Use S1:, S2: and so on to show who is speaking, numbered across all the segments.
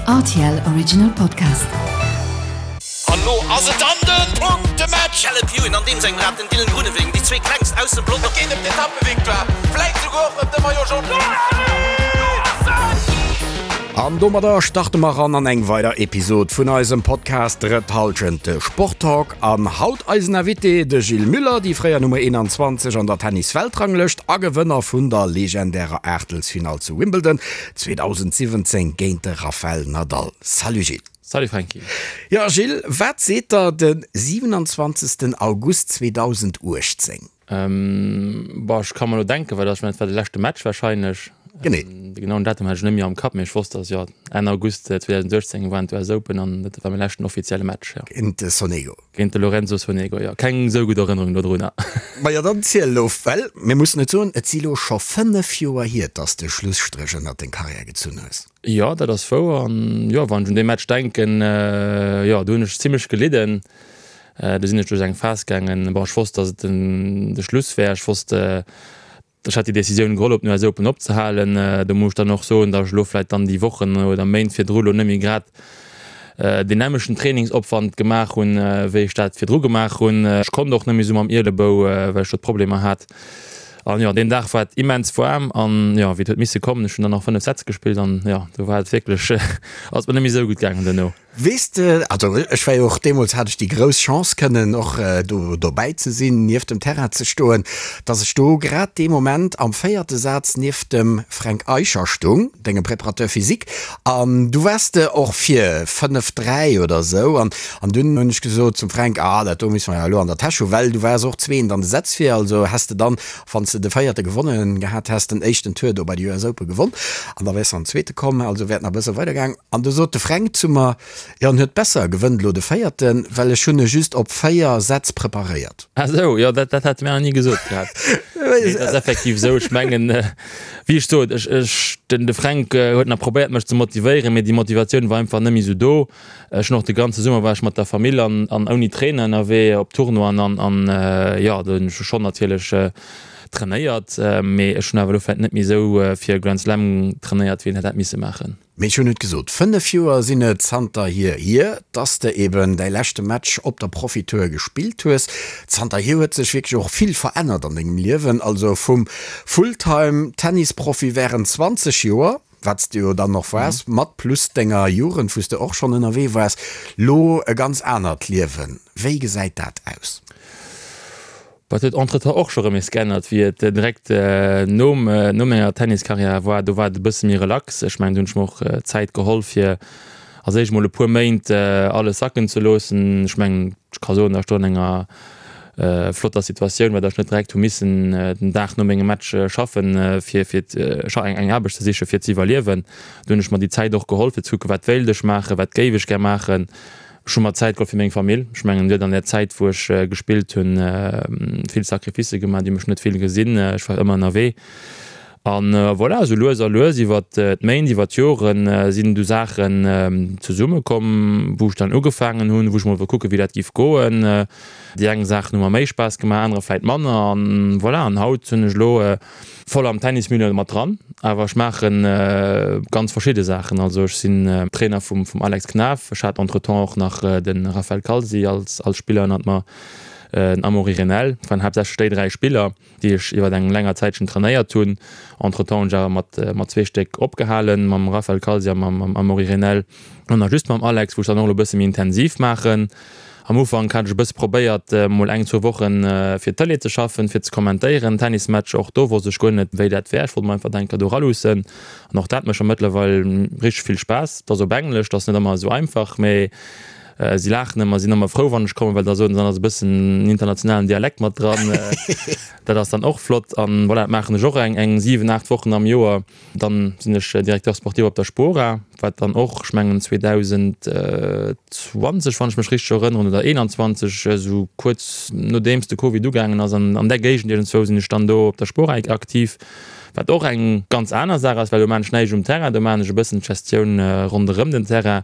S1: Rtl Original Podcast.
S2: An lo ass et dann den Punktematch!
S3: Caleb Ewan an deem sengem Rad, den Dylan Groenewegen, déi zwee klengst aus dem Pelotong.
S2: Et geet ëm d'Etappevictoire, vläit souguer och ëm de Maillot Jaune.
S4: An domadder starte mer ran an eng weider Episod vun eisem Podcast Drëtt Hallschent, de Sporttalk. An haut eisen Invité, de Gilles Muller, déi fréier Nummer 21 an der Tennis-Weltranglëscht a Gewënner vun der legendärer Aachtelsfinall zu Wimbledon 2017 géint de Rafael Nadal. Salut Gilles.
S5: Salut Franky.
S4: Jo Gilles, wat seet der de 27 August 2018?
S5: Bon, ech ka mer elo denken, well ech mengen, et war de leschte Match wahrscheinlech.
S4: Genee.
S5: De genauen Datum hat ech net méi am Kapp, mee ech wosst, dass, jo, Enn August 2018 waren d'US Open an dat war mäi leschten offizielle Match, jo.
S4: Géint de Sonego.
S5: Géint de Lorenzo Sonego, jo. Keng esou gutt Erënnerung dodrunner.
S4: Majo, dann ziel elo, well mir mussen et soen, et si lo scho 5 Joer hier, dass de Schlusstréch ënnert deng Karriär gezunn hues.
S5: Jo, dat ass wouer. An jo, wann ech un dee Match denken, jo, do hunn ech zimmlech gelidden. Do sinn ech duerch eng Phas gaangen, bon, ech wosst, dass et de Schluss wär. Ech wosst, ech hat déi Decisioun geholl, op den US Open opzehalen. Do muss ech dann och soen, dass ech elo vläicht dann déi Wochen oder Méint virdru elo net méi grad deen nämmlechten Trainingsopwand gemaach hunn, wéi ech dat virdru gemaach hunn. Ech konnt och net méi esou mam Ielebou, well ech do d'Problemer hat. An jo, deen Dag war et immens waarm an jo, wéi et huet misse kommen, ech hunn dann nach 5 Sätz gespillt an jo, do war et wierklech, ass et mer net méi esou gutt gaangen duerno.
S4: Weess de, also ech war jo och deemools, hat ech déi grouss Chance kënnen och do dobäi ze sinn, nieft dem Terrain ze stoen, datt ech do grad dee Moment am véierte Saz nieft dem Fränk Eicher stung, dengem Préparateur physique, an du waars de och vir 5, 3 oder esou an an dunn hunn ech gesot zum Fränk, ah dat do musse mer jo elo an der Täsch hu, well du waars och zweent an de Sätz vir, also häss de dann, wann s de de véierte gewonnen gehat häss, den éischten Tour do bei de US Open gewonn an da wäers de an den zweete komm, also wär et nach e bësse weidergaang. An du sot de Fränk zu mer, Jo, en huet besser, gewënnt elo de véierten, well ech hunn e just op 4 Sätz preparéiert.
S5: Ah sou, jo, dat, dat hat e mir nach ni gesot gehat. Nee, dat ass effektiv esou. Ech mengen, wéi ech sot, ech, ech, den, de Fränk huet nach probéiert, mech ze motivéieren, mee déi Motivatioun war einfach net méi esou do. Ech hunn och de ganze Summer war ech mat der Famill an, an ouni Trainer ënnerwee op Tournoien an, an, jo, do hunn ech schonn natierlech trainéiert, mee ech hunn awer elo vläicht net méi esou fir e Grand Slam trainéiert, wéi een hätt misse maachen.
S4: Mee ech hunn et gesot, 5 Joer sinn et zanterhier hier, dass de eben däi leschte Match op der Profitour gespillt hues. Zanterhier huet sech wierklech och vill verännert an dengem Liewen, also vum Fulltime-Tennisprofi wärend 20 Joer, wat s de jo dann och waars, mat plus denger Jugend, wou s de och schonn ënnerwee waars, lo e ganz anert Liewen. Wéi gesäit dat aus?
S5: Wat huet entretemps och scho rëm nees geännert, wéi et direkt nom no menger Tenniskarriär war. Do war et e bësse méi relax. Ech mengen, do hunn ech mer och Zäit geholl, fir als éischt mol e puer Méint alles sacken ze loossen. Ech mengen, ech ka soen, datt ech do an enger flotter Situatioun war, datt ech net direkt hu missen den Dag no mengem Match schaffen, fir fir eng Aarbecht ze sichen, fir ze iwwerliewen. Do hunn ech mer déi Zäit och geholl, fir ze kucken, wat wéilt ech maachen, wat géif ech gär maachen. Ech hu mer Zäit geholl fir meng Famill. Ech mengen, huet an där Zäit, wou ech gespillt hunn, vill Sacrificë gemaach, déi hu mech net vill gesinn. Ech war ëmmer ënnerwee. An voilà, esou lues a lues iwwer d'Méint, iwwer d'Joren sinn du Saachen zesummekomm, wou ech dann ugefaangen hunn, wou ech mol wollt kucken, wéi dat giff goen. Déi eng Saachen hu mer méi Spaass gemaach, anerer vläit manner. An voilà, an haut hunn ech elo Voll am Tennismilieu mat dran, awer ech maache ganz verschidde Saachen. Also ech sinn Trainer vum Alex Knaff, ech hat entretemps och nach de Raphael Calzi als Spiller ënnert mer, den Amaury Renel. Et waren haaptsächlech déi 3 Spiller, déi ech iwwer eng länger Zäitchen trainéiert hunn. Entretemps hunn ech awer mat zwee Stéck opgehalen, mam Raphael Calzi a mam Amaury Renel an nach just mam Alex, wou ech dann och elo e bësse méi intensiv maachen. Am Ufank hat ech e bësse probéiert, mol eng, zwou Wochen fir d'Tëlee ze schaffen, fir ze kommentéieren, Tennismatcher. Och do wosst ech guer net, wéi dat wär. Ech wollt mer einfach denker do eraluussen. An och dat mécht mer mëttlerweil richteg vill Spaass. Et ass op Englesch, et ass net ëmmer esou einfach, mee si laachen ëmmer, sinn ëmmer frou, wann ech kommen, well da soen se, dann ass e bëssen en internationalen Dialekt mat dran. Dat ass dann och flott. An voilà, dat maachen ech och eng 7, 8 Wochen am Joer. Dann sinn ech Directeur sportif op der Spora, wat dann och, ech mengen 2020, wann ech mech richteg erënneren, oder 21, esou kuerz nodeems de Covid ugaangen ass, an an där Géigend iergendzwou sinn ech dann do op der Spora aktiv, wat och eng ganz aner Saach ass, well do maan ech näischt um Terrain, do maan ech e bëssen d'Gestioun ronderëm den Terrain.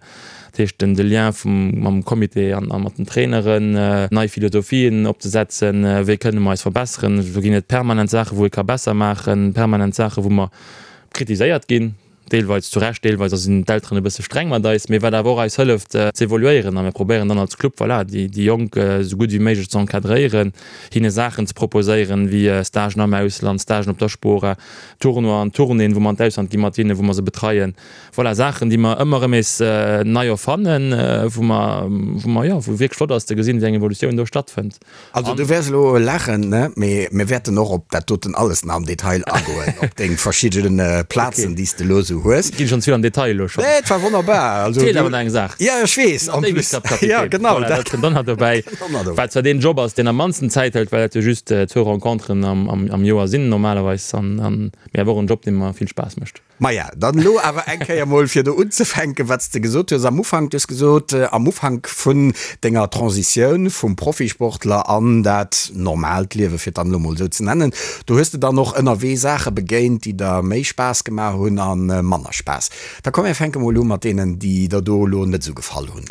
S5: Dat heescht den de Lien vum mam Comité an a mat den Traineren, nei Philosophien opzesetzen, wéi kënne mer eis verbesseren. Do ginn et permanent Saache wou ee ka besser maachen, permanent Saache wou mer kritiséiert ginn. Deelweis zu Recht, deelweis sinn d'Elteren e bësse streng mat eis, mee wat awer och eis hëlleft ze evoluéieren. A mir probéieren dann als Club, voilà, déi Jonk esou gutt wéi méiglech ze encadréieren, hinne Saachen ze proposéieren, wéi Stagen am Ausland, Stagen op der Spora, Tournoien, Tournéeën, wou mer an d'Ausland gi mat hinnen, wou mer se betreien. Voilà, Saachen, déi mer ëmmer erëm nees nei erfannen, wou mer, wou mer, jo, wou wierklech flott ass ze gesinn, wéi eng Evolutioun do stattfënnt.
S4: Also du wäers elo laachen, ne? Mee mir wäerten och op dat doten alles nach am Detail agoen, op deng verschidden Plazen, déi s de elo esou hues.
S5: Ginn schonn ze vill am Detail elo schonn.
S4: Nee, et war wonnerbar.
S5: Also Feelt awer nach eng Saach.
S4: Ja, ech weess.
S5: En plus. Ja, genau. Voilà, dat kënnt dann nach dobäi. Wat zwar deen Job ass, deen am mannsten Zäit hëlt, well dat jo just zwou Renconteren am Joer sinn normalerweis, an, mee awer och en Job, dee mer vill Spaass mécht.
S4: Maja, dann elo awer eng Kéier mol fir do unzefänken, wat s de gesot hues am Ufank. Du hues gesot, am Ufank vun denger Transitioun vum Profisportler an dat normaalt Liewe, fir et dann elo mol esou ze nennen, do hues de dann och ënnerwee Saache begéint, déi der méi Spaass gemaach hunn a manner Spaass. Da komm mir fänke mol u mat deenen, déi der do elo net esou gefall hunn.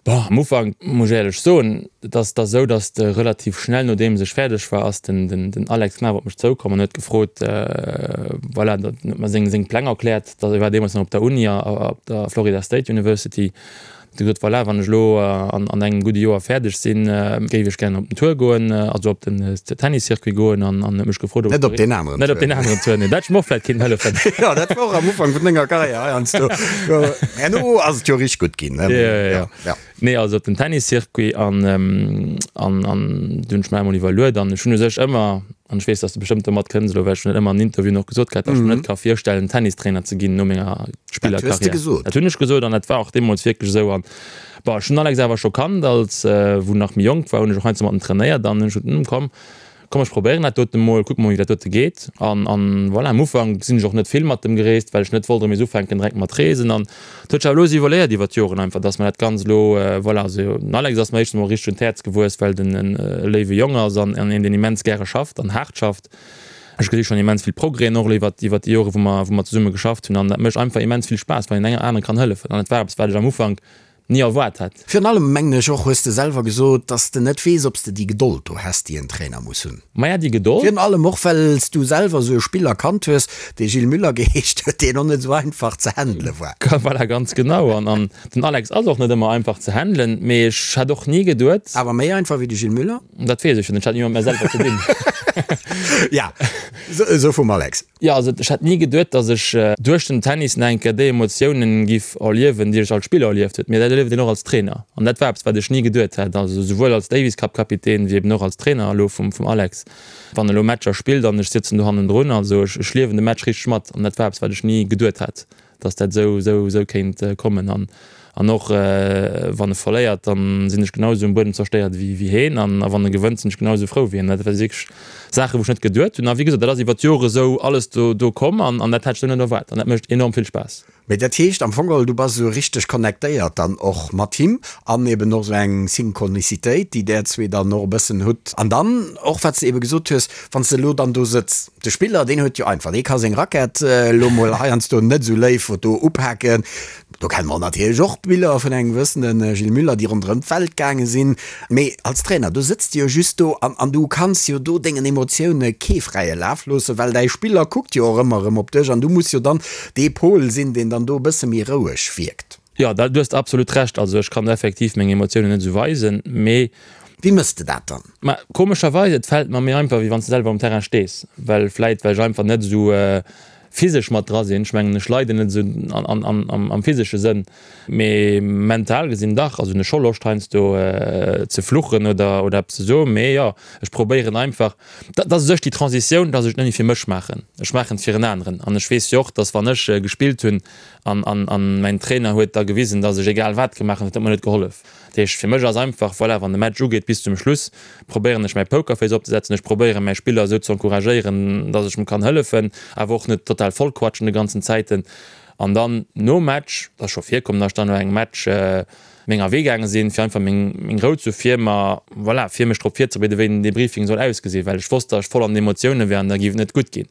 S5: Bon, am Ufank muss ech éierlech soen, et ass da sou, datt de relativ schnell nodeems ech fäerdeg war, ass den den Alex Knaff op mech zoukomm an huet gefrot, voilà, huet mer seng seng Pläng erkläert, datt e war deemools nach op der Uni, op der Florida State University, huet e gesot, voilà, wann ech elo an an engem gudde Joer fäerdeg sinn, géif ech gären op den Tour goen, also op den Tenniscircuit goen an an huet mech gefrot,
S4: ob Net op deen aneren
S5: Net op deen aneren Tour, nee, dat hätt ech mer och vläicht kéinten hëllefen.
S4: Jo, dat war och am Ufank vun denger Karriär heiansdo. Herno ass et jo richteg gutt ginn, ne?
S5: Ja, ja, ja. Nee, also op den Tenniscircuit an, an, an du hunn ech mer emol iwwerluet an ech hunn u sech ëmmer, an ech weess, dass de bestëmmt domat kënns elo, well ech hunn dat ëmmer an Interviewen och gesot gehat, dass ech mer net ka virstellen, Tennistrainer ze ginn no menger Spillerkarriär.
S4: Dat hues de gesot?
S5: Dat hunn ech gesot an dat war och deemools wierklech esou. An bon, ech hunn den Alex awer scho kannt als, wou en nach méi jonk war, hunn ech och heiansdo mat em trainéiert an hunn ech gesot, hm, komm, Komm ech probéieren dat doten emol, kucken mol wéi dat dote geet. An an voilà, am Ufank sinn ech och net vill mat dem gereest, well ech net wollt erëm nees ufänken direkt mat reesen. An et huet sech awer elo esou evoluéiert iwwer d'Joren einfach, dass mer dat Ganzt elo voilà, also den Alex ass mer éischtens emol richteg un d'Häerz gewuess, well den en e léiwe Jong ass an an een deen immens gäre schafft an haart schafft. Ech gesi schonn immens vill Progrèsen och elo iwwer iwwer déi Jore wou mer wou mer zesumme geschafft hunn an dat mécht einfach immens vill Spaass, wann een engem anere kann hëllefen. An et war eppes wat ech am Ufank
S4: ni
S5: erwaart hätt.
S4: Virun allem, mengen ech och, hues de selwer gesot, dass de net weess, ob s de déi Gedold do häss, déi en Trainer muss hunn.
S5: Maja, déi Gedold.
S4: Virun allem och, well s du selwer esou e Spiller kannt hues, dee Gilles Müller geheescht huet, deen och net esou einfach ze handele war.
S5: Voilà, ganz genau. An, an den Alex ass och net ëmmer einfach ze handelen, mee ech hätt och ni geduet.
S4: Awer méi einfach wéi de Gilles Müller?
S5: Dat weess ech jo net, ech hat ni mat mär selwer ze dinn.
S4: Ja, esou vum Alex.
S5: Jo, also ech hätt ni geduet, datt ech duerch den Tennis nach eng Kéier déi Emotiounen giff erliewen, déi ech als Spiller erlieft huet. Mee dat erlieft een och als Trainer. An dat war eppes, wat ech ni geduet hätt. Also souwuel als Davis Cup Kapitän wéi eben och als Trainer elo vum vum Alex. Wann e lo Matcher spillt an ech sëtzen do hannendrun, also ech ech liewen de Match richteg mat. An dat war eppes, wat ech ni geduet hätt. dass dat esou esou esou kéint kommen an an och wann e verléiert, dann sinn ech genau esou um Buedem zerstéiert wéi wéi heen an a wann e gewënnt, sinn ech genau esou frou wéi hien. Dat war wierklech Saachen, wou ech net geduet hunn a wéi gesot, dat ass iwwer d'Jore esou alles do do komm an an dat hat ech esou net erwaart an dat mécht enorm vill Spaass.
S4: Mee dat heescht am Fong geholl, du bass esou richteg connectéiert dann och mat him an eben och esou eng Synchronicitéit, déi där zwee dann och e bëssen hutt an dann och wat s de ebe gesot hues, wann s de elo dann do sëtz, De Spiller, deen huet jo einfach, dee ka seng Rackett elo mol heiansdo net esou léif do upaken. Do kenne mer natierlech och Biller vun engem gewëssene Gilles Müller, déi ronderëm d'Welt gaange sinn. Mee als Trainer, do sëtz de jo just do an an du kanns jo do dengen Emotioune kee fräie Laf loossen, well däi Spiller kuckt jo och ëmmer erëm op dech an du muss jo dann dee Pol sinn, deen dann do e bësse méi roueg wierkt.
S5: Jo, da, du hues absolut Recht. Also ech kann effektiv meng Emotiounen net esou weisen, mee.
S4: Wéi mëss de dat dann?
S5: Ma komescherweis, et fält mer méi einfach, wéi wann s de selwer um Terrain stees, well vläit well ech einfach net esou physesch mat dra sinn. Ech mengen, ech leiden net esou am physesche Sënn, mee mental gesinn dach. Also hunn ech scho Loscht heiansdo ze fluchen oder oder eppes ze soen, mee jo, ech probéieren einfach, dat ass u sech déi Transitioun, dass ech et net méi fir mech maachen, ech maachen et fir en aneren. An ech weess jo och, dass wann ech gespillt hunn, An, an, an mäin Trainer huet da gewisen, dass ech egal wat gemaach hunn, dat huet mer net gehollef. Dat heescht, fir mech ass einfach, voilà, wann de Match ugeet bis zum Schluss, probéieren ech mäi Pokerface opzesetzen, ech probéieren mäi Spiller esou ze encouragéieren, dass ech em kann hëllefen, awer och net total vollquatschen de ganzen Zäiten. An dann nom Match, et ass scho virkomm, dass ech dann no engem Match menger Wee gaange sinn, fir einfach meng, meng Rou ze hu fir mer, voilà, fir mech drop virzebereeden, wéi den Debriefing soll ausgesinn, well ech wosst, dass ech voll an den Emotioune wär an da géif et net gutt ginn.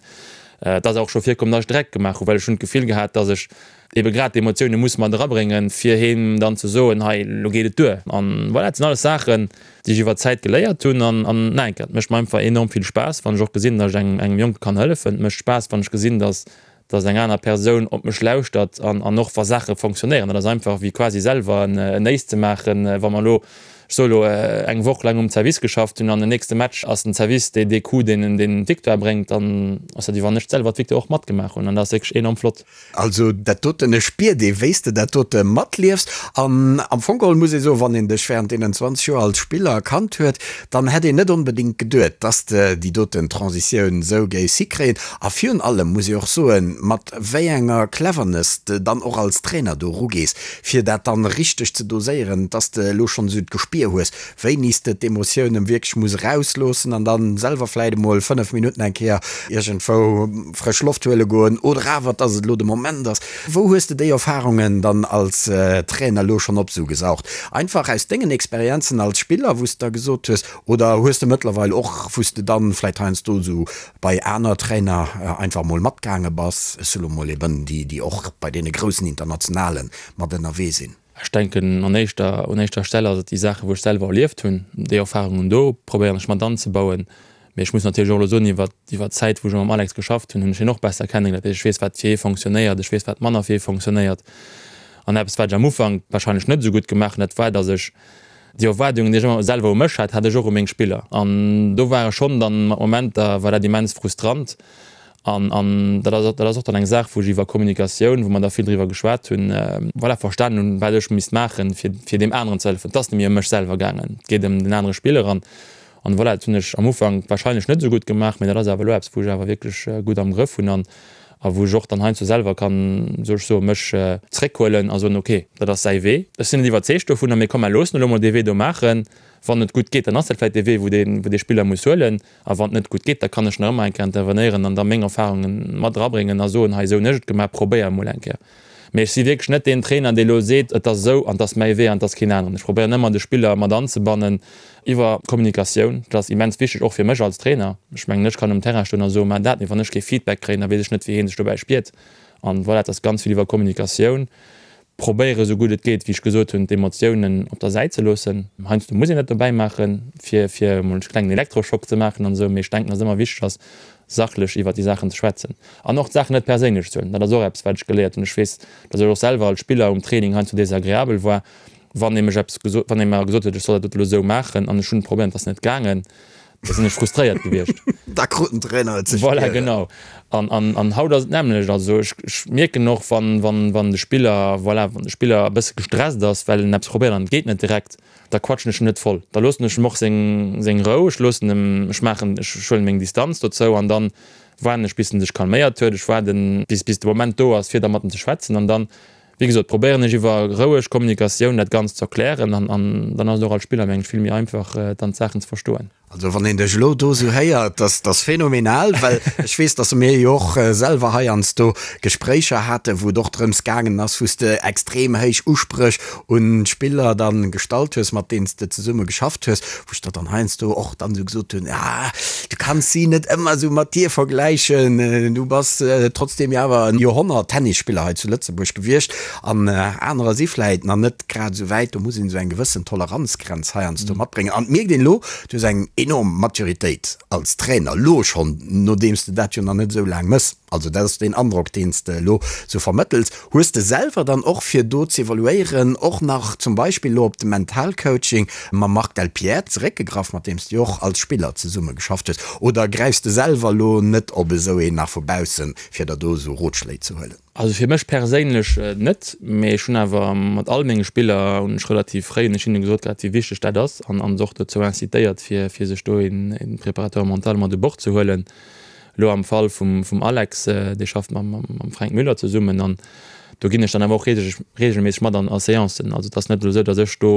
S5: Et ass och scho virkomm, datt ech Dreck gemaach hunn, well ech hunn d'Gefill gehat, datt ech ebe grad d'Emotioune muss mat erabréngen, fir him dann ze soen, hei, elo geet et duer. An voilà, dat sinn alles Saachen, déi ech iwwer d'Zäit geléiert hunn. An, an nach eng Kéier, et mécht mer einfach enorm vill Spaass, wann ech och gesinn, datt ech engem, engem Jonke kann hëllefen. Et mécht Spaass, wann ech gesinn, datt. Dass eng aner Persoun op mech lauschtert an an och wa Saache fonctionnéieren. Dat ass einfach wéi quasi selwer en en Ace ze maachen. Wa mer elo, ech soe elo, eng Woch laang um Service geschafft hunn an den nächste Match ass den Service dee dee Coup deen deen d'Victoire bréngt, dann ass dat wéi wann ech selwer d'Victoire och matgemaach hunn an dat ass wierklech enorm flott.
S4: Also dat doten, et spiert ee wéi s de dat dote matliefs. An am Fong geholl muss ee soen, wann een dech während deenen 20 Joer als Spiller kannt huet, dann hätt een net onbedéngt geduet, dass de déi doten Transitioun esou géifs hikréien. A virun allem muss ee och soen, mat wéi enger Cleverness de dann och als Trainer do erugees, fir dat dann richteg ze doséieren, dass de elo schonn esou d'Gespier hues, wéini s de d'Emotiounen wierklech muss erausloossen an dann selwer vläit emol 5 Minutten eng Kéier iergendwou frësch Loft huele goen oder awer, dass et elo de Moment ass. Wou hues de déi Erfahrungen dann als Trainer elo schonn opsugesaugt? Einfach aus dengen Experienzen als Spiller, wou s de da gesot hues, oder hues de mëttlerweil och, wou s de dann vläit heiansdo esou bei aner Trainer einfach mol matgaange bass, ech soe lo mol eben déi, déi och bei deene groussen Internationale mat ënnerwee sinn?
S5: Ech denken, an éischter, un éischter Stell ass et déi Saachen, wou ech selwer erlieft hunn, déi Erfahrungen do probéieren ech mat anzebauen. Mee ech muss natierlech och elo soen, iwwer, iwwer d'Zäit, wou ech mam Alex geschafft hunn, hunn ech hien och besser kennengeléiert. Dat heescht, ech weess, wat fir hie fonctionnéiert, ech weess, wat manner fir hie fonctionnéiert. An eppes, wat ech am Ufank wahrscheinlech net esou gutt gemaach hunn, dat war, datt ech déi Erwaardungen, déi ech ëmmer selwer u mech hat, hat ech och u meng Spiller. An do war ech schonn dann mat Momenter war dat immens frustrant. An, an dat ass, dat ass och dann eng Saach, wou ech iwwer Kommunikatioun, wou mer da vill driwwer geschwat hunn, voilà, verstanen hunn, wat ech misst maachen, fir, fir deem aneren ze hëllefen. Et ass net méi ëm mech selwer gaangen, et geet ëm den anere Spiller. An, an voilà, dat hunn ech am Ufank wahrscheinlech net esou gutt gemaach, mä dat ass awer elo eppes, wou ech awer wierklech gutt am Grëff hunn an, a wou ech och dann heiansdo selwer kann, soll ech soen, mech zréckhuelen a soen, okay, dat ass säi Wee, ech sinn net iwwerzeegt dovunner, mee komm, mer loossen elo mol dee Wee do maachen. Wann et gutt geet, dann ass dat vläicht dee Wee, wou dee, wou dee Spiller muss huelen. A wann et net gutt geet, da kann ech nach ëmmer eng Kéier intervenéieren an da meng Erfahrungen mat erabréngen a soen, hei esou hunn ech et gemaach, probéier emol eng Kéier. Mee ech si wierklech net deen Trainer, dee elo seet, et ass esou an et ass mäi Wee an et ass keen aneren. Ech probéieren ëmmer de Spiller mat anzebannen iwwer Kommunikatioun. Dat ass immens wichteg, och fir mech als Trainer. Ech mengen, ech kann um Terrain stoen a soen, maach dat, mee wann ech kee Feedback kréien, da weess ech net, wéi hee sech dobäi spiert. An voilà, et ass ganz vill iwwer Kommunikatioun. Probéiere sou gutt et geet, wéi ech gesot hunn, d'Emotiounen op der Säit ze loossen. Heiansdo muss een dat dobäi maachen, fir fir emol e klengen Elektroschock ze maachen an esou, mee ech denken, dass et ëmmer wichteg ass, sachlech iwwert déi Saachen ze schwätzen an och d'Saachen net perséinlech ze huelen. Dat ass och eppes, wat ech geléiert hunn. Ech weess, dass ech och selwer als Spiller um Training heiansdo desagreabel war, wann ee mech eppes gesot, wann ee mer gesot huet, ech soll dat dote lo esou maachen an ech hunn probéiert, et ass net gaangen. Da sinn ech frustréiert gewiescht.
S4: Da krut den Trainer et ze
S5: spieren. Voilà, genau. An, an, an haut ass et d'nämmlecht. Also ech, ech mierken och, wann, wann, wann de Spiller, voilà, wann de Spiller e bësse gestresst ass, well en eppes probéiert an et geet net direkt, da quatschen ech en net voll. Da loossen ech em och seng, seng Rou. Ech loossen em, ech maachen, ech huelen meng Distanz dozou an dann waarden ech, bis en sech calméiert huet. Ech waarden, bis, bis de Moment do ass, fir da mat em ze schwätzen an dann, wéi gesot, probéieren ech iwwer roueg Kommunikatioun dat Ganzt ze erklären an, an dann ass et och als Spiller, meng ech, vill méi einfach, dann d'Saachen ze verstoen.
S4: Also wann een dech elo do esou héiert, dass dass phänomenal, well ech weess, dass mir jo och selwer heiansdo Gespréicher haten, wou et och drëms gaangen ass, wou s de extrem héich Uspréch un d'Spiller dann gestallt hues, mat deenen s de zesumme geschafft hues, wou ech der dann heiansdo och dann esou gesot hunn, ah, du kanns si net ëmmer esou mat dir vergläichen, du bass trotzdeem jo awer en Joerhonnert-Tennisspiller hei zu Lëtzebuerg gewiescht an anerer si vläit nach net grad esou wäit. Do muss een esou eng gewëssen Toleranzgrenz heiansdo matbréngen. An et mierkt een elo, du hues eng enorm Maturitéit als Trainer, elo schonn, nodeems de dat jo nach net esou laang mëss. Also dat ass deen Androck, deen s de elo sou vermëttels. Hues de selwer dann och, fir do z'evaluéieren, och nach zum Beispill elo op de Mentalcoaching mam Marc Delpierre zeréckgegraff, mat deem s de jo och als Spiller zesumme geschafft hues? Oder gräifs de selwer elo net op esou een nach vu baussen, fir der do esou Rotschléi ze huelen?
S5: Also fir mech perséinlech net, mee ech hunn awer mat all menge Spiller hunn ech relativ fréi hunn ech hinne gesot gehat, wéi wichteg dat ass an an se och dozou incitéiert, fir fir sech do een Préparateur mental mat u Bord ze huelen. Elo am Fall vum vum Alex, dee schafft mam mam Fränk Müller zesummen an do ginn ech dann awer och reegelméisseg mat an a Seancen. Also et ass net elo esou, datt ech do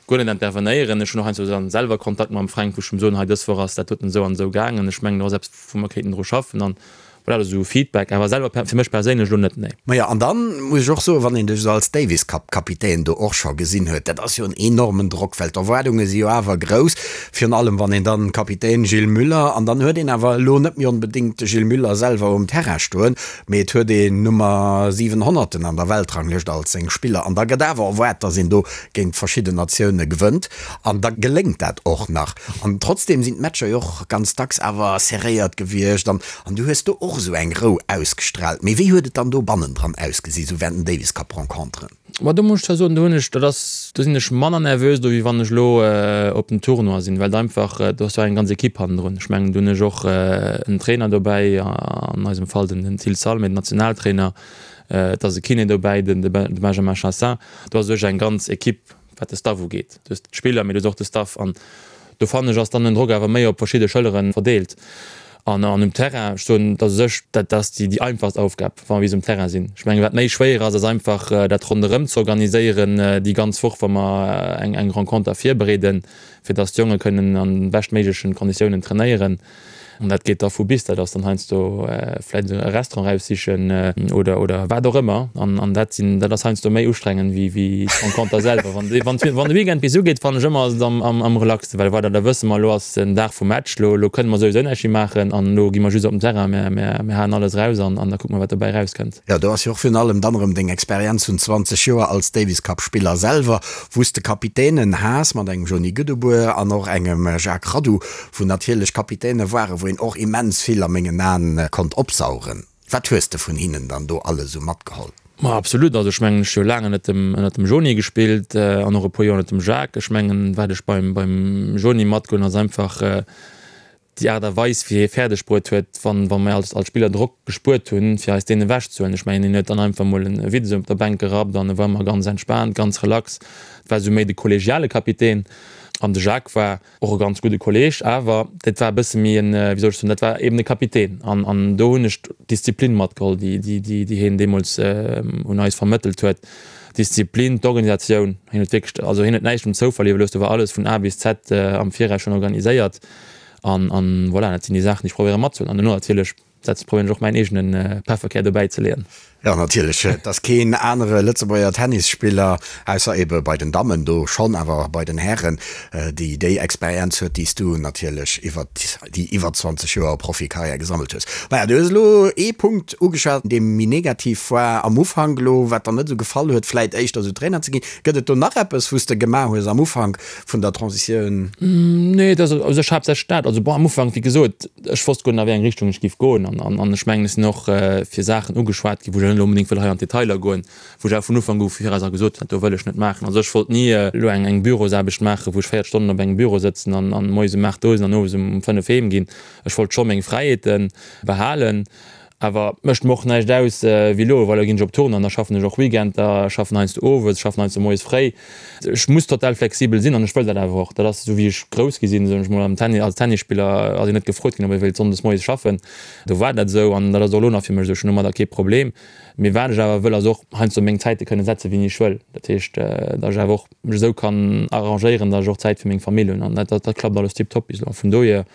S5: guer net intervenéieren. Ech hunn och heiansdo dann selwer Kontakt mam Fränk, wou ech em soen, hei dës Woch ass dat doten esou an esou gaangen, ech mengen do ass eppes wou mer kéinten dru schaffen an voilà, dat ass esou Feedback, awer selwer fir mech perséinlech elo net, nee.
S4: Majo, an dann muss ech och soen, wann een dech esou als Davis Cup Kapitän do och scho gesinn huet, dat ass jo en enormen Drock, well d'Erwaardunge si jo awer grouss, virun allem wann een dann Kapitän Gilles Muller, an dann huet een awer elo net méi onbedéngt de Gilles Muller selwer um Terrain stoen, mee et huet een Nummer 700 an der Weltranglëscht als seng Spiller an da gëtt awer erwaart, datt een do géint verschidden Natioune gewënnt an da geléngt dat och nach an trotzdem sinn d'Matcher jo och ganz dacks awer serréiert gewiescht an an du hues do och. och esou eng Rou ausgestraalt. Mee wéi huet et dann do bannendran ausgesi sou während den Davis Cup Renconteren?
S5: Ma do muss ech zwar soen, do hunn ech, dat ass, do sinn ech manner nervös do wéi wann ech elo op den Tournoi sinn, well et einfach, do ass jo eng ganz Equipe hannendrun. Ech mengen, do hunn ech och en Trainer dobäi, an eisem Fall den den Thil Salmé, den Nationaltrainer, et ass e Kiné dobäi, den de Benjamin Chassin. Do ass u sech eng ganz Equipe wat de Staff ugeet. Du hues d'Spiller, mee du hues och de Staff an do fannen ech ass dann den Drock awer méi op verschidde Schëllere verdeelt. An an um Terrain, ech soen, dat u sech, dat ass déi déi einfachst Aufgab, wa mer bis um Terrain sinn. Ech mengen, wat méi schwéier ass, ass einfach dat ronderëm ze organiséieren déi ganz Woch, wa mer eng eng Renconter virbereeden, fir datt d'Jonge kënnen an de beschtméiglechen Konditiounen trainéieren. An dat geet da vu bis, dat ass dann heiansdo vläicht e Restaurant eraussichen oder, oder wat och ëmmer. An, an dat sinn, dat ass heiansdo méi ustrengend wéi, wéi d'Renconter selwer. Wann de, wann, wann de Weekend bis ugeet, fannen ech ëmmer, ass et am, am, am relaxten, well voilà, da wësse mer, elo ass den Dag vum Match, elo, elo kënne mer souwisou näischt méi maachen an elo gi mer just op den Terrain, mer, mer, mer haen alles eraus an, an da kucke mer, wat dobäi erauskënnt.
S4: Jo, do ass jo och virun allem dann erëm deng Experienz vun 20 Joer als Davis Cup Spiller selwer, wou s de Kapitänen has mat engem Joni Goedebuer an och engem Jacques Radou, wou natierlech Kapitäne waren, wou een och immens vill a mengen Aen konnt opsaugen. Wat hues de vun hinnen dann do alles esou matgeholl?
S5: Ma absolut, also ech mengen ech hu jo laang ënnert dem ënnert dem Joni gespillt an och e puer Joer ënnert dem Jacques. Ech mengen wat ech beim beim Joni matgeholl hunn ass einfach déi Aart a Weis wéi hie fäerdeg bruet huet, wann wa mir als als Spiller Drock gespuert hunn, fir eis deen ewech ze huelen. Ech mengen hien huet dann einfach mol e Witz op der Bänk gerappt an e war ëmmer ganz entspaant, ganz relax. Et war esou méi de kollegiale Kapitän an de Jacques war Och e ganz gudde Kolleg, awer dat war e bësse méi en, wéi soll ech soen, dat war eben e Kapitän. An, an do hunn ech d'Disziplin matgeholl, déi, déi, déi, déi hien deemools un eis vermëttelt huet. D'Disziplin, d'Organisatioun. Hien huet wierklech, also hien huet näischt dem Zoufall iwwerlooss, do war alles vun A bis Z am Viraus schonn organiséiert. An, an voilà, dat sinn déi Saachen, déi ech probéiere matzehuelen. An duerno natierlech Setz probéieren ech och mäin eegene Pefferkär dobäi ze leeën.
S4: Jo, natierlech. Et ass keen anere Lëtzebuerger Tennisspiller, ausser ebe bei den Dammen do schonn, awer bei den Hären, déi déi Experienz huet, déi s du natierlech iwwer déi iwwer 20 Joer Profikarriär gesammelt hues. Maja, du hues elo ee Punkt ugeschwat, dee méi negativ war am Ufank elo, wat der net esou gefall huet, vläit éischter esou Trainer ze ginn. Gëtt et do nach eppes, wou s de gemaach hues am Ufank vun der Transitioun?
S5: Nee, et ass u sech haaptsächlech dat. Also bon, am Ufank, wéi gesot, Ech wosst guer net a wéi eng Richtung ech giff goen an an ech mengen ech sinn och fir Saachen ugeschwat ginn, wou ech net elo onbedéngt wëll hei an d'Detailer goen, wou ech awer vun Ufank u viraus a gesot hunn, dat do wëll ech net maachen. Also ech wollt ni elo eng eng Bürosaarbecht maachen, wou ech 40 Stonnen op engem Büro sëtzen an an moies um 8 do sinn an owes um 5 heem ginn. Ech wollt scho meng Fräiheete behalen. Awer mécht mer och näischt aus wéi elo, well elo ginn ech op Tournée an da schaffen ech och Weekender, schaffen heiansdo owes, schaffen heiansdo moies fréi. Ech muss total flexibel sinn an ech wëll dat awer och. Dat ass esou wéi ech grouss gi sinn, soen ech mol. Am Tennis, als Tennisspiller ass een net gefrot ginn, ob ee wéilt sonndes moies schaffen. Do war dat esou an dat ass och elo nach fir mech esou. Ech hunn domadder kee Problem. Mee wat ech awer wëll, ass och heiansdo meng Zäite kënne setze wéini ech wëll. Dat heescht, datt ech awer och mech esou kann arrangéieren, datt ech och Zäit fir meng Famill hunn an dat dat klappt alles tiptop bis elo. Vun dohier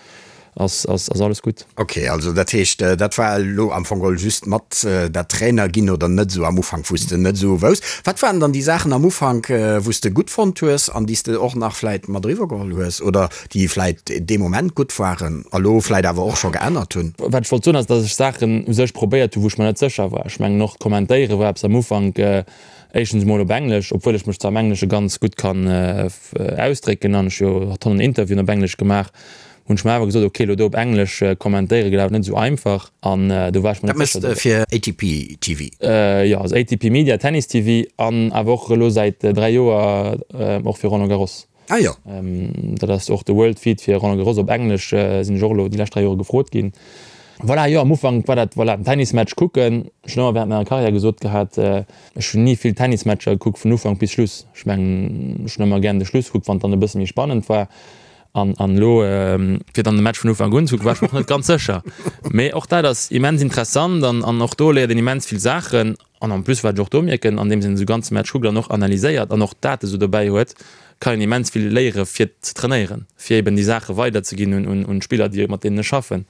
S5: ass ass alles gutt.
S4: Ok, also dat heescht dat war elo am Fong geholl just mat dat Trainer ginn oder net esou am Ufank wou s de net esou wousst. Wat waren dann déi Saachen am Ufank wou s de gutt fonnt hues an déi s de och nach vläit mat eriwwer geholl hues oder déi vläit dee Moment gutt waren a lo vläit awer och scho geännert hunn?
S5: Wat ech wollt soen ass, datt ech Saachen u sech probéiert hu wou ech mer net sécher war. Ech mengen och d'Kommentéiere war eppes am Ufank, éischtens emol op Englesch, obwuel ech mech zwar am Englesche ganz gutt kann ausdrécken an ech jo Tonnen Interviewen op Englesch gemaach hunn ech mer awer gesot, ok, elo do op Englesch kommentéiere gëtt awer net esou einfach an do war ech mer
S4: Dat
S5: net sécher.
S4: méchs de fir ATP TV?
S5: Jo, also ATP Media, Tennis TV an awer och elo säit 3 Joer och fir Roland Garros.
S4: Ah jo.
S5: Dat ass och de World Feed fir Roland Garros op Englesch, sinn ech och elo déi lescht 3 Jore gefrot ginn. Voilà, jo, am Ufank war dat, voilà, den Tennismatch kucken. Ech hunn ëmmer während menger Karriär gesot gehat, ech hunn ni vill Tennismatcher gekuckt vun Ufank bis Schluss. Ech mengen, ech hunn ëmmer gären de Schluss gekuckt, wann et dann e bësse méi spannend war. An an elo fir dann de Match vun Ufank un ze kucken, war ech mer och net ganz sécher. Mee och dat ass immens interessant an an och do léiert een immens vill Saachen. An en plus, wat ech och do mierken, andeems een esou ganze Match kuckt an och analyséiert an och d'Date esou dobäi huet, kann een immens vill léiere fir ze trainéieren, fir eben déi Saache weiderzeginn un un d'Spiller, déi mat deenen ech schaffen.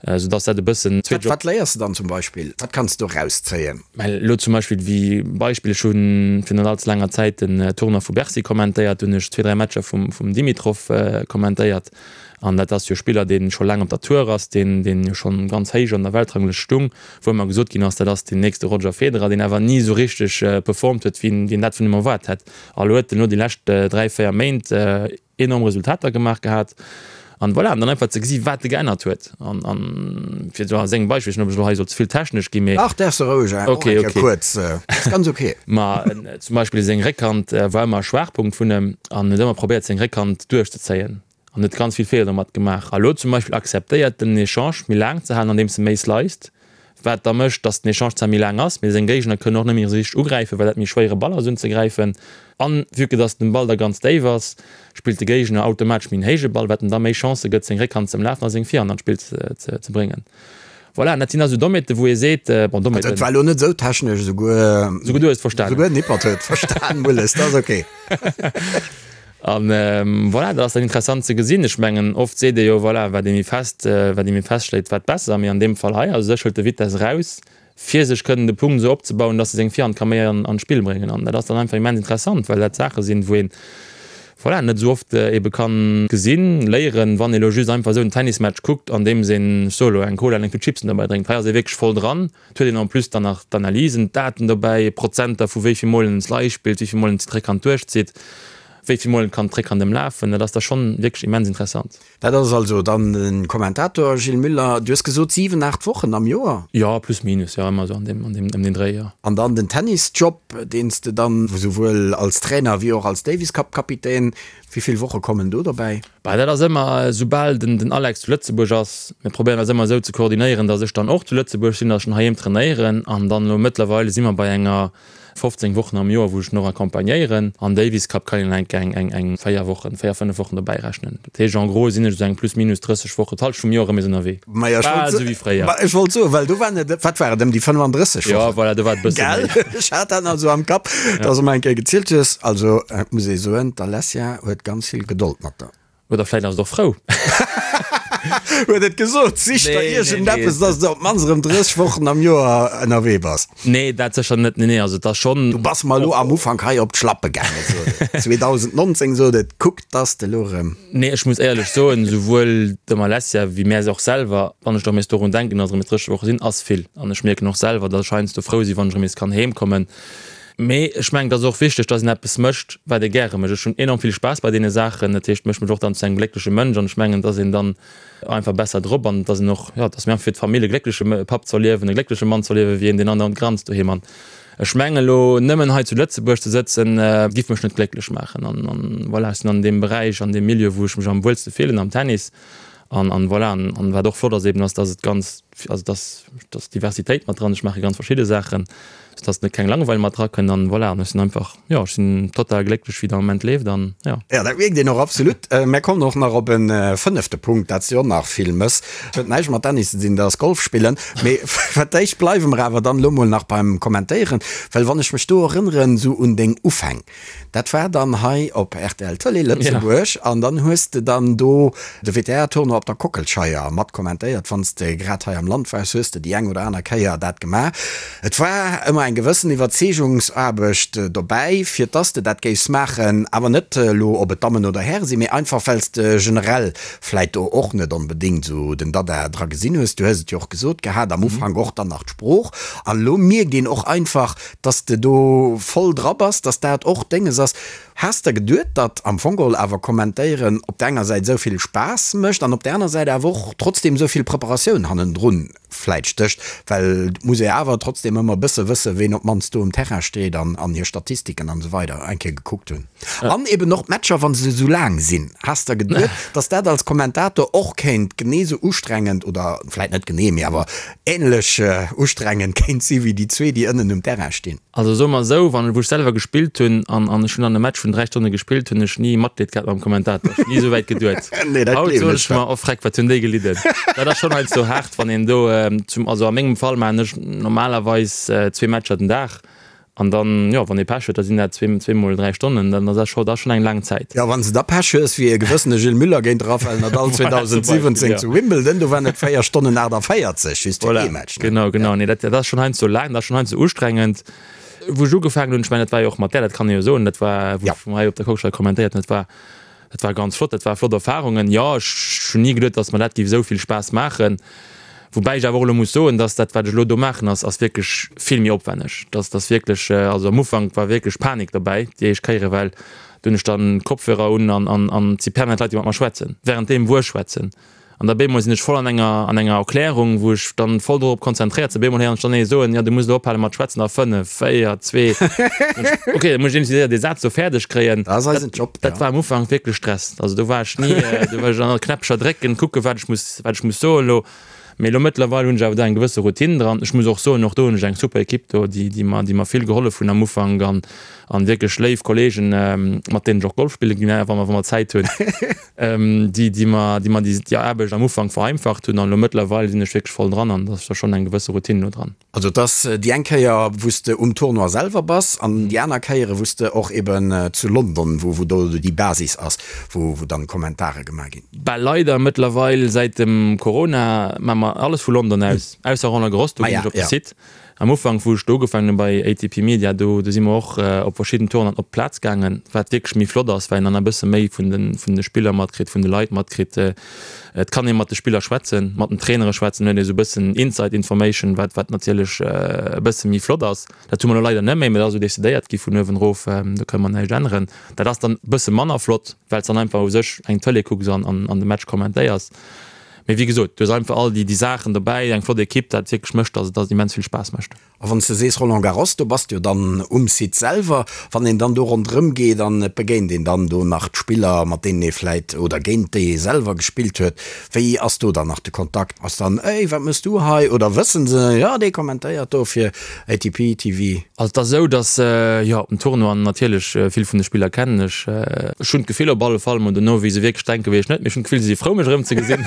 S5: Soudass dat e bëssen
S4: zweet. Wat léiers de dann zum Beispill? Wat kanns de do rauszéien?
S5: Mä elo zum Beispill wéi Beispill, ech hu virun net allze laanger Zäit den Tournoi vu Bercy kommentéiert, do hunn ech zwee, dräi Matcher vum vum Dimitrov kommentéiert an dat ass jo e Spiller, dee scho laang op der Tour ass, deen deen jo schonn ganz héich an der Weltranglëscht stung, wou ëmmer gesot ginn ass, dat ass deen nächste Roger Federer, deen awer ni esou richteg performt huet, wéi een dat vun him erwaart hätt. A lo huet en elo déi lescht dräi, véier Méint enorm Resultater gemaach gehat. An voilà, an dann einfach ze gesi wat e geännert huet. An, an fir esou a sengem Beispill, ech weess net ob ech elo hei soll ze vill technesch ginn, mee.
S4: Ach, däerfs de roueg, och eng Kéier kuerz, ass ganz ok.
S5: Ma zum Beispill seng Réckhand war ëmmer e Schwaachpunkt vun em an huet ëmmer probéiert seng Réckhand duerchzezéien an huet ganz vill Feeler domat gemaach. A lo zum Beispill akzeptéiert en den Echange méi laang ze halen andeems e méi sliced, wat da mécht, datt den Echange zwar méi laang ass, mee seng Géigner kënnen och net méi esou richteg ugräifen, well dat méi schwéiere Ball ass unzegräifen. An vue que datt den Ball da ganz déif ass, spillt de Géigner automatesch méi en héije Ball, wat em da méi Chancë gëtt seng Réckhand ze ëmlafen a seng Virhand an d'Spill ze bréngen. Voilà, an dat sinn also Dommheeten, wou ee seet, bon, Dommheeten.
S4: Dat war elo net esou technesch, esouguer.
S5: Esouguer du hues et verstanen.
S4: Esouguer den Hippert huet et verstan, Mulles, dat ass ok.
S5: An voilà, dat ass dann interessant ze gesinn. Ech mengen, oft seet ee jo, voilà, wat ee méi fest, wat ee méi fest schléit, wat besser. Mee an deem Fall hei, also sech hëlt de Vitesse eraus, fir sech kënnen de Punkt esou opzebauen, dass e seng Virhand ka méi an d'Spill bréngen. An dat ass dann einfach immens interessant, well dat Saache sinn, wou een, voilà, net esou oft ebe kann gesinn, léieren, wann ee lo just einfach esou en Tennismatch kuckt, andeems een, ech soe lo, eng Cola an eng Tut Chipsen dobäi drénkt. Hei ass ee wierklech voll dran. Et huet een en plus dann nach d'Analysen, d'Daten dobäi, Prozenter vu wéi vill Mol en Slice spillt, wéi vill Mol en d'Réckhand duerchzitt, wéi vill Mol en kann d'Réckhand ëmlafen. Dat ass da schonn wierklech immens interessant.
S4: Dat ass also dann de Kommentator Gilles Muller. Du hues gesot 7, 8 Wochen am Joer?
S5: Jo, plus minus, jo, ëmmer esou an deem, an deem, ëm deen Dréi, jo.
S4: An dann den Tennisjob, deen s de dann esouwuel als Trainer wéi och als Davis Cup Kapitän, wéi vill Woche kommen do dobäi?
S5: Bah, dat ass ëmmer, esoubal den, den Alex zu Lëtzebuerg ass, mir probéieren eis ëmmer esou ze koordinéieren, datt ech dann och zu Lëtzebuerg sinn, datt ech dann heiheem trainéieren an dann elo mëttlerweile si mer bei enger 15 Wochen am Joer wou ech en och accompagnéieren. An Davis Cup kann een enk eng eng eng 4 Wochen, 4, 5 Wochen dobäi rechnen. Dat heescht en gros sinn ech esou eng plus minus 30 Wochen, d'Halschent vum Joer erëm nees ënnerwee.
S4: Majo, ech wollt
S5: Bal esou wéi fréier.
S4: Ma ech wollt soen, well do waren et, wat war et, ëm déi 35 Wochen?
S5: Jo, voilà, do war et e bësse
S4: méi. Gell? Ech hat dat nach esou am Kapp, dass de mer eng Kéier gezielt hues. Also, et muss ee soen, d'Alessia huet ganz vill Gedold mat der.
S5: Oder vläit ass et och frou.
S4: Huet et gesot, sich der iergendeppes, dass de op d'mannst erëm 30 Wochen am Joer ënnerwee bass.
S5: Nee, dat sécher net. Nee, nee, also et ass schonn.
S4: Du bass mer elo am Ufank hei op d'Schlappe gaangen, sot et. 2019 sot et, kuck, dass de elo erëm.
S5: Nee, ech muss éierlech soen, souwuel dem Alessia wéi mär och selwer, wann ech erëm nees dorun denken, dass erëm nees 30 Woche sinn, ass vill. An ech mierken och selwer, dass ech heiansdo frou sinn, wann ech erëm nees kann heemkommen. Mee ech mengen, et ass och wichteg, dass een eppes mécht, wat ee gäre mécht. Ech hunn enorm vill Spaass bei deene Saachen. Dat heescht, mécht mech och dann zu engem gléckleche Mënsch an ech mengen, et ass een dann einfach besser drop an et ass een och, jo, et ass méi einfach fir d'Famill e gléckleche Papp ze erliewen, e gléckleche Mann ze erliewen, wéi een, deen andauernd granzt doheem. An ech mengen, elo nëmmen hei zu Lëtzebuerg ze sëtzen, giff mech net glécklech maachen. An, an voilà, ech sinn an deem Beräich, an deem Milieu, wou ech mech am wuelste fillen, am Tennis. An, an voilà, an, an wat och flott ass eben, ass, dass et ganz, also dass, dass Diversitéit mat dran, ech maache ganz verschidde Saachen, sou dass net keng Langeweil mat drakënnt an voilà, an ech sinn einfach, jo, ech sinn total glécklech wéi et am Moment leeft an jo.
S4: Jo, dat mierkt een och absolut. Mär kommen och nach op e fënnefte Punkt, dat s de och nach vill mëss. Huet näischt mat Tennis ze dinn, dat ass Golf spillen. Mee fir d'éischt bleiwe mer awer dann elo mol nach beim Kommentéieren, well wann ech mech do erënneren esou un deng Ufäng, Dat war dann hei op rtl Tëlee Lëtzebuerg an dann hues de dann do de WTA-Tournoi op der Kockelscheier mat kommentéiert. Wann s de grad hei am Land waars, hues de déi eng oder aner Kéier dat gemaach. Et war ëmmer eng gewëssen Iwwerzeegungsaarbecht dobäi, fir dass de dat géifs maachen, awer net elo ob et Dammen oder Häre sinn, mee einfach well s de generell vläit do och net onbedéngt esou den Dada dra gesinn hues. Du hues et jo och gesot gehat, am Ufank och dann nach d'Sprooch an elo mierkt een och einfach, Dass de do voll dra bass, dass dat och dénges ass. Has der geduet, datt am Fong geholl awer kommentéieren op der enger Säit esou vill Spaass mécht an op der aner Säit awer och trotzdem esou vill Preparatioun hannendrun vläit stécht? Well et muss ee awer trotzdem ëmmer e bësse wësse ween op d'mannst do um Terrain steet an an hir Statistiken an esou weider eng Kéier gekuckt hunn. An eben och d'Matcher, wa se esou laang sinn. Has der geduet, dass dat als Kommentator och kéint genee esou ustrengend oder vläit net genee, mee awer Ähnlech ustrengend kéint si wéi déi zwee, déi ënnen um Terrain stinn.
S5: Also soe mer esou, wann, wou ech selwer gespillt hunn an an ech hunn dann e Match vun 3 Stonne gespillt, hunn ech ni Matleed gehat mam Kommentator. Ech hunn ni esou wäit geduet.
S4: Nee, dat
S5: Haut
S4: gleewen
S5: soen
S4: ech
S5: ech mer, oh freck, wat hunn déi gelidden. Dat ass schonn heiansdo haart, wann een do zum, also a mengem Fall maachen ech normalerweis zwee Matcher den Dag. An dann, jo, wann ee Pech huet, da sinn dat zweemol 3 Stonnen, dann ass dat scho, dat ass schonn eng laang Zäit.
S4: Jo, wann s de da Pech hues, wéi e gewëssene Gilles Muller géint de Rafael Nadal 2017 zu Wimbledon, do waren et 4 Stonnen 48 just fir ee Match,
S5: ne? Genau, genau. Nee, dat ass schonn heiansdo laang, dat ass schonn heiansdo ustrengend. Wou ech ugefaangen hunn, ech mengen, dat war jo och mat där, dat kann ee jo soen, dat war, wou ech hei op der Kockelscheier kommentéiert hunn, dat war, Dat war ganz flott, dat war flott Erfahrungen. Jo, ech hunn ni geduet, dass mer dat géif esou vill Spaass maachen. Woubäi ech awer och elo muss soen, dass dat, wat ech elo do maachen, ass, ass wierklech vill méi opwänneg. Dass, dass wierklech, also am Ufank war wierklech Panik dobäi, déi éischt Kéiere, well. Do hunn ech dann Kopfhörer un an an an et si permanent Leit, déi mat mer schwätzen, wärenddeem wou ech schwätzen. An da bémol sinn ech voll an enger an enger Erklärung, wou ech dann voll dorop konzentréiert sinn. Bémol héieren ech dann ee soen, jo du muss elo ophale mat schwätzen a 5, 4, 2. Ok, da muss ech iergendwéi séier dee Saz do fäerdeg kréien.
S4: Dat ass eisen Job,
S5: Dat war am Ufank wierklech Stress. Also do war ech ni, do war ech an Knäppcher drécken, kucken, wat ech muss, wat ech muss soen elo. Mee elo mëttlerweil hunn ech awer do eng gewësse Routine dran. Ech muss och soen, och do hunn ech eng super Ekipp do, déi, déi mer, déi mer vill gehollef hunn am Ufank an, an wierklech léif Kolleegen, mat deenen ech och Golf spille ginn, wa mer, wa mer Zäit hunn, déi, déi mer, déi mer déi, déi Aarbecht am Ufank vereinfacht hunn. An elo mëttlerweil sinn ech wierklech voll dran an da ass da schonn eng gewësse Routine elo dran.
S4: Also et ass déi eng Kéier, wou s de um Tournoi selwer bass an déi aner Kéiere wou s de och eben zu London, wou, wou do déi Basis ass, wou, wou dann Kommentare gemaach ginn.
S5: Bah leider mëttlerweil säit dem Corona maa mer alles vu London aus, ausser Roland Garros, do ginn ech op de Site. Am Ufank wou ech do ugefaangen hunn bei ATP Media, do do si mer och op verschidden Tournoien op d'Plaz gaangen, wat wierklech méi flott ass, well een dann e bësse méi vun de vun de Spiller matkritt, vun de Leit matkritt. Et kann ee mat de Spiller schwätzen, mat den Trainere schwätzen, huet ee sou e bëssen Inside Information, wat wat natierlech e bësse méi flott ass. Dat hu mer elo leider net méi, mä dat ass esou decidéiert gi vun uewen erof, do kënne mer näischt änneren. Dat ass dann e bësse manner flott, well s dann einfach u sech eng Tëlee kucks an an de Match kommentéiers. Mee wéi gesot, du hues einfach all déi déi Saachen dobäi, eng flott Ekipp, dat wierklech mécht, dass et dass et immens vill Spaass mécht.
S4: A wann s de sees Roland Garros, do bass de jo dann um Site selwer. Wann een dann do ronderëm geet an et begéint een dann do nach d'Spiller, mat deenen ee vläit oder géint déi ee selwer gespillt huet, Wéi ass do dann nach de Kontakt? Ass dann, Ey, wat mëss du hei? Oder wëssen se, jo, dee kommentéiert do fir ATP TV?
S5: Also et ass esou, datt, jo, op den Tournoien natierlech, vill vun de Spiller kennen ech. Ech hunn d'Gefill op alle Fall, mol dono wéi se wierklech denken, weess ech net, mee ech hunn d'Gefill, se si frou mech erëmzegesinn.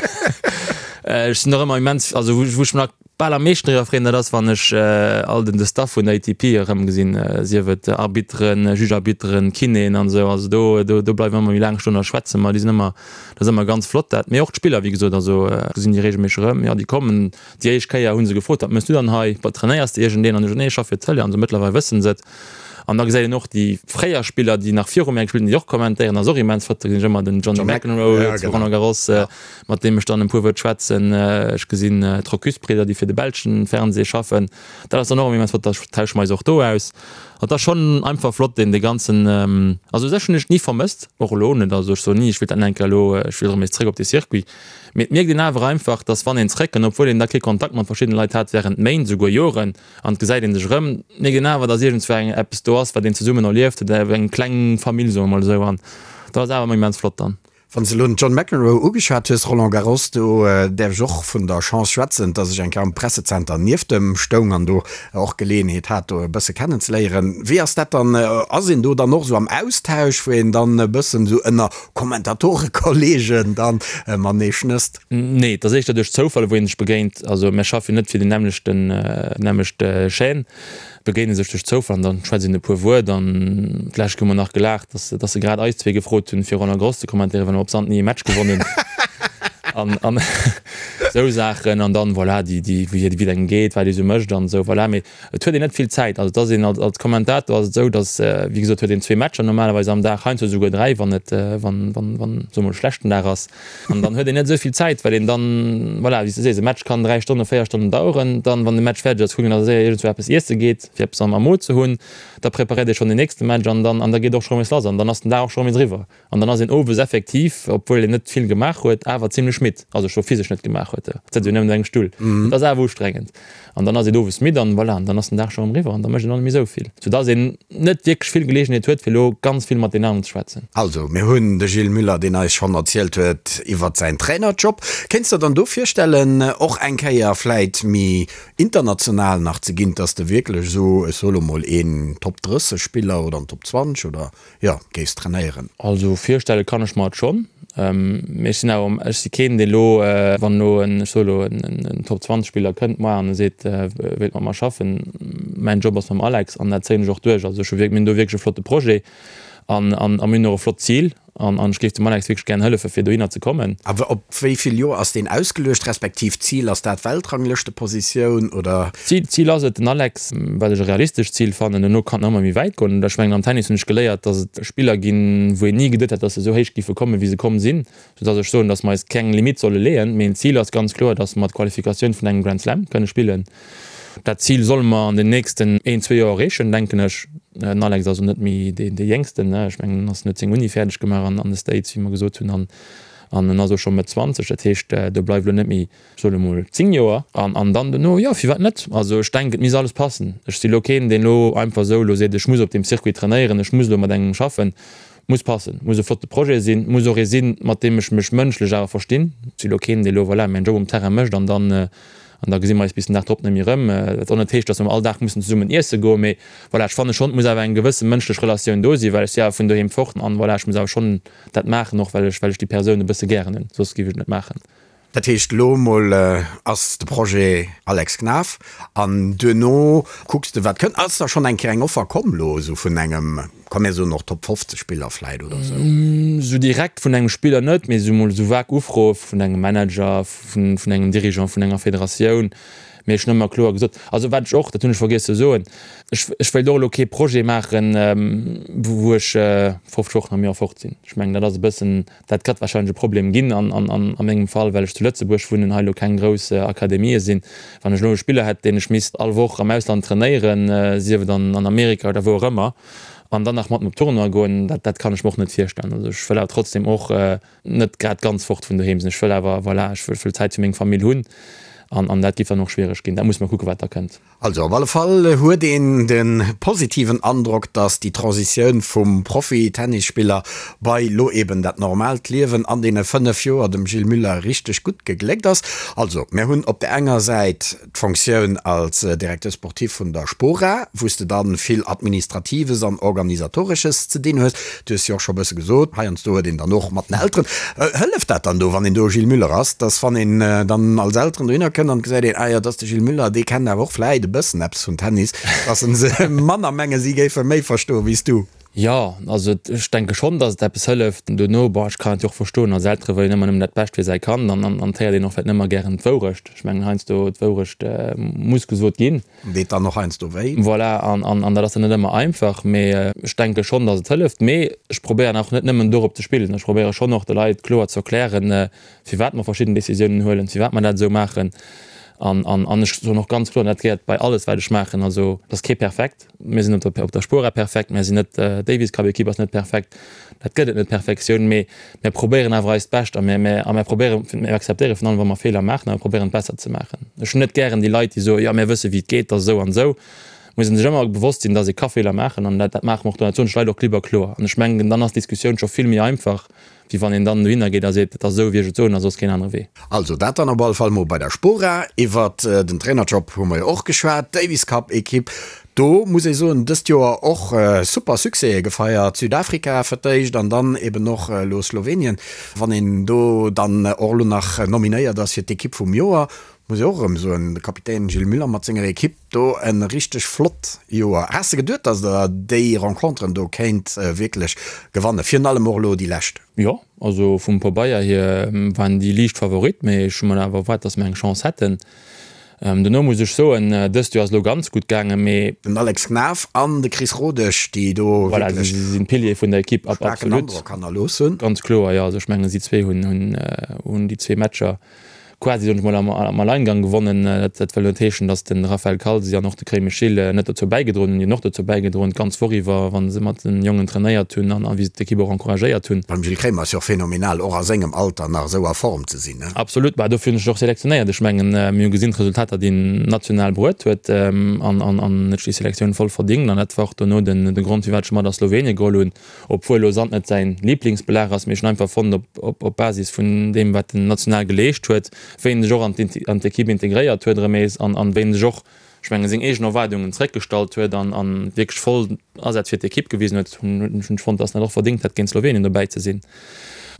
S5: Ech sinn och ëmmer immens, also wou ech mech nach bal am meeschten driwwer freeën, dat ass wann ech all den de Staff vun der ATP erëmgesinn, sief et Arbitteren, Juge-Arbitteren, Kinéen an esou. Also do, do, do bleiwe mer ëmmer méi laang stoen a schwätze mer. Déi sinn ëmmer, dat ass ëmmer ganz flott dat. Mee och d'Spiller, wéi gesot, also gesinn déi reegelméisseg erëm. Jo, déi kommen. Déi éischt Kéier hu se gefrot, wat mëss du dann hei, wat trainéiers de iergendeen? An ech, nee, ech schaffe fir d'Tëlee. An esou mëttlerweil wësse se et. An da gesäit een och déi fréier Spiller, déi nach viru mär gespillt hunn, déi och kommentéieren. Dat ass och immens flott. Da gesinn ech ëmmer den Johnny McEnroe zu Roland Garros, mat deem ech dann e puer Wuert schwätzen. Ech gesinn d'Rocus-Bridder, déi fir de belschen Fernseh schaffen. Dat ass dann och ëmmer immens flott. Da tausche mer eis och do aus. Et ass schonn einfach flott, deen dee ganzen, also u sech hunn ech et ni vermësst, och elo net. Also ech soen ni, ech wéilt dann eng Kéier elo, ech wéilt erëm nees zréck op dee Circuit. Mee et mierkt een awer einfach, dass wann een zréckkënnt, obwuel een da kee Kontakt mat verschiddene Leit hat während Méint, esouguer Joren, An et gesäit een sech erëm, mierkt een awer, dass iergendzwou eng eppes do ass, wat een zesummen erlieft huet, eng kleng Famill, soe mer mol esou. An dat ass awer ëmmer immens flott dann.
S4: Wann s de elo den John McEnroe ugeschwat hues, Roland Garros, do däerf ech och vun der Chance schwätzen, dass ech eng Kéier am Pressezenter nieft em stoung an do och Geleeënheet hat, do e bësse kennenzeléieren. Wéi ass dat dann? Ass een do dann och esou am Austausch, wou een dann e bëssen esou ënner Kommentatorekollegen dann matenee schnësst?
S5: Nee, et ass éischter duerch Zoufall, wou ee sech begéint. Also mir schaffe jo net fir déi nämmlechten, nämmlecht Chaîne, begéine sech duerch Zoufall an dann schwätzt een e puer Wuert. An d'lescht hu mer nach gelaacht, dass, dass se grad eis zwee gefrot hunn, fir Roland Garros ze kommentéieren, well mer op Sand ni e Match gewonnen hunn. An, an esou Saachen. An dann, voilà, déi, déi, wéi et engem geet, wat ee sou mécht an esou, voilà. Mee Et huet een net vill Zäit. Also et ass een als Kommentator ass et esou, datt, wéi gesot, huet een zwee Matcher normalerweis am Dag, heiansdo esouguer dräi, wann et, wann, wann, wann, soe mol, e schlechten Dag ass. An dann huet een net esou vill Zäit, well een dann, voilà, wéi s de sees, e Match kann dräi Stonnen, véier Stonnen daueren. Dann, wann de Match fäerdeg ass, kuckt een, datt e séier iergendzwou eppes iesse geet, fir eppes am Mo ze hunn. Da preparéiert ee schonn den nächste Match an dann, an da geet och scho rëm ees lass an dann ass den Dag och scho rëm ees eriwwer. An dann ass een owes effektiv, obwuel een net vill gemaach huet, awer zimlech midd. Also scho physesch net gemaach huet, et sëtzt jo nëmmen an engem Stull. Et ass awer ustrengend. An dann ass een owes midd an voilà, an dann ass den Dag scho erëm eriwwer an da mécht een och net méi esou vill. Soudass een net wierklech vill Geleegenheet huet, fir elo ganz vill mat deenen aneren ze schwätzen.
S4: Also, mir hunn de Gilles Muller, deen eis schonn erzielt huet iwwert säin Trainerjob. Kéints der dann do virstellen, och eng Kéier vläit méi international nach ze ginn, dass de wierklech esou, ech soe lo mol, een Top 30 Spiller oder en Top 20 oder jo, géifs trainéieren?
S5: Also virstelle kann ech mer et schonn, mee ech sinn awer, ech si keen dee lo, wann elo en, ech soe lo en Top 20 Spiller kënnt moar an e seet e wéilt mat mer schaffen, mäin Job ass mam Alex an dat zéien ech och duerch. Also ech hu wierk, mir hunn do wierklech e flotte Projet an an mir hunn och e flott Zil. An ech géif dem Alex wierklech gären hëllefen, fir dohinner ze kommen.
S4: Awer op wéi vill Joer ass deen ausgeluecht, respektiv d'Zil, ass dat Weltranglëschtepositioun oder?
S5: D'Zil ass et, den Alex, wat ech e realistescht Zil fannen, duerno kann et nach ëmmer méi wäit goen. Ech mengen am Tennis hunn ech geléiert, datt et Spiller ginn, wou een ni geduet hätt, datt se esou héich géife kommen, wéi se komm sinn, soudatt ech soen, datt mer eis keng Limitt solle leeën. Mee en Zil ass ganz kloer, datt mer d'Qualifikatioun vun engem Grand Slam kënne spillen. Dat Zil solle mer an den nächsten een, zwee Joer erreechen, denken ech. Den Alex ass och net méi dee Jéngsten, ne? Ech mengen, en ass, en huet seng Uni fäerdeg gemaach an de States, wéi mer gesot hunn, an an en ass och scho Mëtt 20. Dat heescht, do bleift elo net méi, ech soen emol, 10 Joer. An an dann dono, jo, firwat net? Also ech denken, et misst alles passen. Ech si lo keen, deen elo einfach esou elo seet, ech muss op deem Circuit trainéieren, ech muss elo mat engem schaffen. Muss passen, muss e flotte Projet sinn, muss och ee sinn, mat deem ech mech mënschlech awer verstinn. Ech si lo keen, dee lo, voilà, mäin Job um Terrain mécht an dann an da gesi mer eis bis den Dag drop net méi erëm. Wat och net heescht, datt mer all Dag mussen zesummen iesse goen, mee voilà, ech fanne schonn, et muss awer eng gewësse mënschlech Relatioun do sinn, well ech si awer vun doheem fort an voilà, ech muss awer schonn dat maachen, och well ech well ech déi Persoun e bësse gären hunn, soss géif ech et net maachen.
S4: Dat heescht, elo emol ass de Projet Alex Knaff an duerno kucks de wat kënnt. Ass da schonn eng Kéier eng Offer komm elo esou vun engem, komm mir soen och Top 50 Spiller vläit oder esou?
S5: Esou direkt vun engem Spiller net, mee esou emol esou vag Ufroe vun engem Manager, vun engem Dirigeant vun enger Federatioun. Mee ech hunn ëmmer kloer gesot, also wat ech och, dat hunn ech vergiess ze soen, ech ech wéilt och elo kee Projet maachen, wou ech 50 Wochen am Joer fort sinn. Ech mengen dat ass e bëssen, Dat gëtt wahrscheinlech e Problem ginn an a mengem Fall, well ech zu Lëtzebuerg wunnen, hei elo keng grouss Akademië sinn. Wann ech elo e Spiller hätt, deen ech misst all Woch am Ausland trainéieren, sief et an Amerika oder wou och ëmmer, an dann nach mat op Tournoi goen, dat dat kann ech mer och net virstellen. Also ech wëll awer trotzdem och net grad ganz fort vun doheem sinn. Ech wëll awer, voilà, ech wëll Zäit fir meng Famill hunn an an dat géif dann och schwiereg ginn. Dat muss mer kucken, wat da kënnt.
S4: Also op alle Fall huet een de positiven Androck, dass déi Transitioun vum Profi-Tennisspiller bei lo eben dat normaalt Liewen an deene 5 Joer dem Gilles Muller richteg gutt gegléckt ass. Also mir hunn op der enger Säit d'Fonctioun als Directeur sportif vun der Spora, wou s de dann vill Administratives an Organisatoresches ze dinn hues. Du hues jo och scho bësse gesot, heiansdo huet een dann och mat den Elteren, hëlleft dat dann do, wann een do Gilles Muller ass, dass wann een dann als Elteren dohinner kënnt an gesäit een, ah jo, dat ass de Gilles Muller, dee kennt awer och vläit e bëssen eppes vun Tennis, dass se manner mengen, si géife méi verstoen wéi s du?
S5: Jo, also ech denke schonn, dass et eppes hëlleft. Dono, bon, ech kann et jo och verstoen, als Eltere wëll een ëmmer nëmmen dat Bescht fir säi Kand an an et héiert een och vläit net ëmmer gären d'Wourecht. Ech mengen heiansdo, d'Wourecht muss gesot ginn.
S4: Deet dann och heiansdo wéi.
S5: Voilà, an dat ass dann net ëmmer einfach, mee ech denke schonn, datt et hëlleft. Mee ech probéieren och net nëmmen dorop ze spillen. Ech probéiere schonn och de Leit kloer ze erklären, firwat mer verschidden Decisiounen huelen, firwat mer dat esou maachen. An ech soen och ganz kloer, an dat gehéiert bei alles, wat ech maachen, also et ass kee perfekt. Mir sinn op der Spora perfekt, mir sinn net, d'Davis Cup Equipe ass net perfekt, dat gëtt et net, Perfektioun, mee mir probéieren awer eist Bescht a mir, a mir probéieren, mir akzeptéiere virun allem wa mer Feeler maachen a mir probéieren et besser ze maachen. Ech hunn net gären déi Leit, déi soen, jo mir wësse wéi et geet, et ass esou an esou. Muss ee sech ëmmer bewosst sinn, datt ee ka Feeler maachen an dat, dat maache mer och do, dat soen ech Leit och klipp a kloer an ech mengen, dann ass d'Diskussioun scho vill méi einfach, wéi wann een dann dohinner geet a seet, et ass esou wéi ech et soen a soss keen anere Wee.
S4: Also dat dann op alle Fall mol bei der Spora. Iwwert den Trainerjob hu mer jo och geschwat. D'Davis Cup Equipe, do muss ee soen, dëst Joer och super Succèse gefeiert. Südafrika fir d'éischt an dann eben och elo Slowenien. Wann een do dann och elo nach nominéiert ass fir d'Equipe vum Joer, muss ee och erëm soen, de Kapitän Gilles Muller mat senger Equipe do e richteg flott Joer. Has de geduet, datt der déi Renconteren do kéint wierklech gewannen, virun allem och elo déi lescht?
S5: Jo, also vum Pabeier hier waren déi liicht Favorit, mee ech hu mer awer erwaart, datt mer eng Chance hätten. Dono muss ech soen, dëst Joer ass elo ganz gutt gaangen, mee.
S4: Den Alex Knaff an de Chris Rodesch, déi do
S5: wierklech. Voilà, si sinn d'Piliere vun der Ekipp, absolut. Staarken
S4: Androck hannerlooss hunn.
S5: Ganz kloer, jo. Also ech mengen, si zwee hunn déi zwee Matcher quasi, soen ech mol, am Alleingang gewonnen. Dat wëll net heeschen, datt de Raphaël Calzi an och de Crémy Schilles net dozou bäigedroen hunn. Déi hunn och dozou bäigedroen, d'ganz Woch iwwer, wa se mat den Jongen trainéiert hunn an wéi se d'Ekipp och encouragéiert hunn.
S4: Beim Gilles Kremer ass jo och phänomenal, och a sengem Alter nach esou a Form ze sinn.
S5: Absolut, bah dofir hunn ech en och selektionéiert. Ech mengen, mir hu gesinn d'Resultater, déi en national bruet huet an an huet sech déi Selektioun voll verdingt an dat war och dono den de Grond, firwat ech e mat a Slowenien geholl hunn. Obwuel elo Sand net säin Liblingsbelag ass, mee ech hunn einfach fonnt op op Basis vun deem wat en national geleescht huet, wéi en sech och an an d'Ekipp integréiert huet erëm nees an an wéi en sech och, ech mengen, seng eegen Erwaardungen zeréckgestallt huet an an wierklech voll Asaz fir d'Ekipp gewisen huet, hunn ech fonnt, dass en dat och verdéngt hätt géint Slowenien dobäi ze sinn.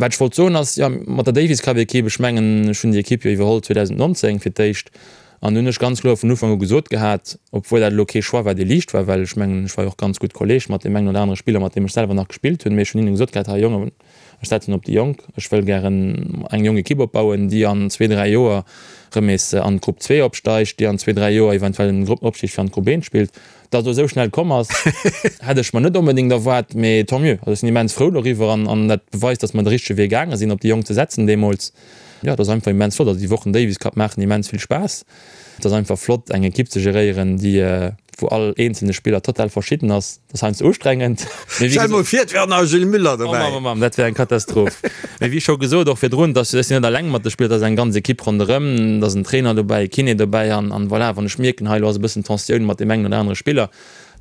S5: Wat ech wollt soen ass, jo mat der Davis Cup Ekipp, ech mengen ech hunn déi Ekipp jo iwwerholl 2019 fir d'éischt, An hunn ech ganz kloer vun Ufank u gesot gehat, obwuel dat elo kee Choix war, dee liicht war, well ech mengen, ech war jo och ganz gutt Kolleeg mat deem engen oder anere Spiller, mat deem ech selwer nach gespillt hunn, mee ech hunn hinne gesot gehat, Hei Jongen, ech setzen op déi Jonk, ech wëll gären eng jonk Ekipp opbauen, déi an zwee, dräi Joer erëm nees an d'Grupp 2 opsteigt, déi an zwee, dräi Joer eventuell den Gruppenopstig fir an d'Grupp 1 spillt. Datt et elo esou schnell komm ass, hätt ech mer net onbedéngt erwaart, mee tant mieux. Also ech sinn immens frou doriwwer an dat beweist, datt mer de richtege Wee gaange sinn, op déi Jonk ze setzen deemools. Jo, et ass einfach immens flott. Also déi Wochen Davis Cup maachen immens vill Spaass. Et ass einfach flott eng Ekipp ze geréieren, déi, wou all eenzelne Spiller total verschidden ass. Dat ass heiansdo ustrengend.
S4: Mee wéi Stell mol vir, et wär och nach e Gilles Müller
S5: dobäi. Oh Mamm, oh Mamm, dat wär eng Katastroph. Mee wéi scho gesot, och virdrun, dass ech sinn net alleng mat de Spiller, et ass eng ganz Ekipp ronderëm, et ass en Trainer dobäi, e Kiné dobäi an, an voilà, wann ech mierken, hei elo ass e bëssen Tensioun mat deem engen oder anere Spiller,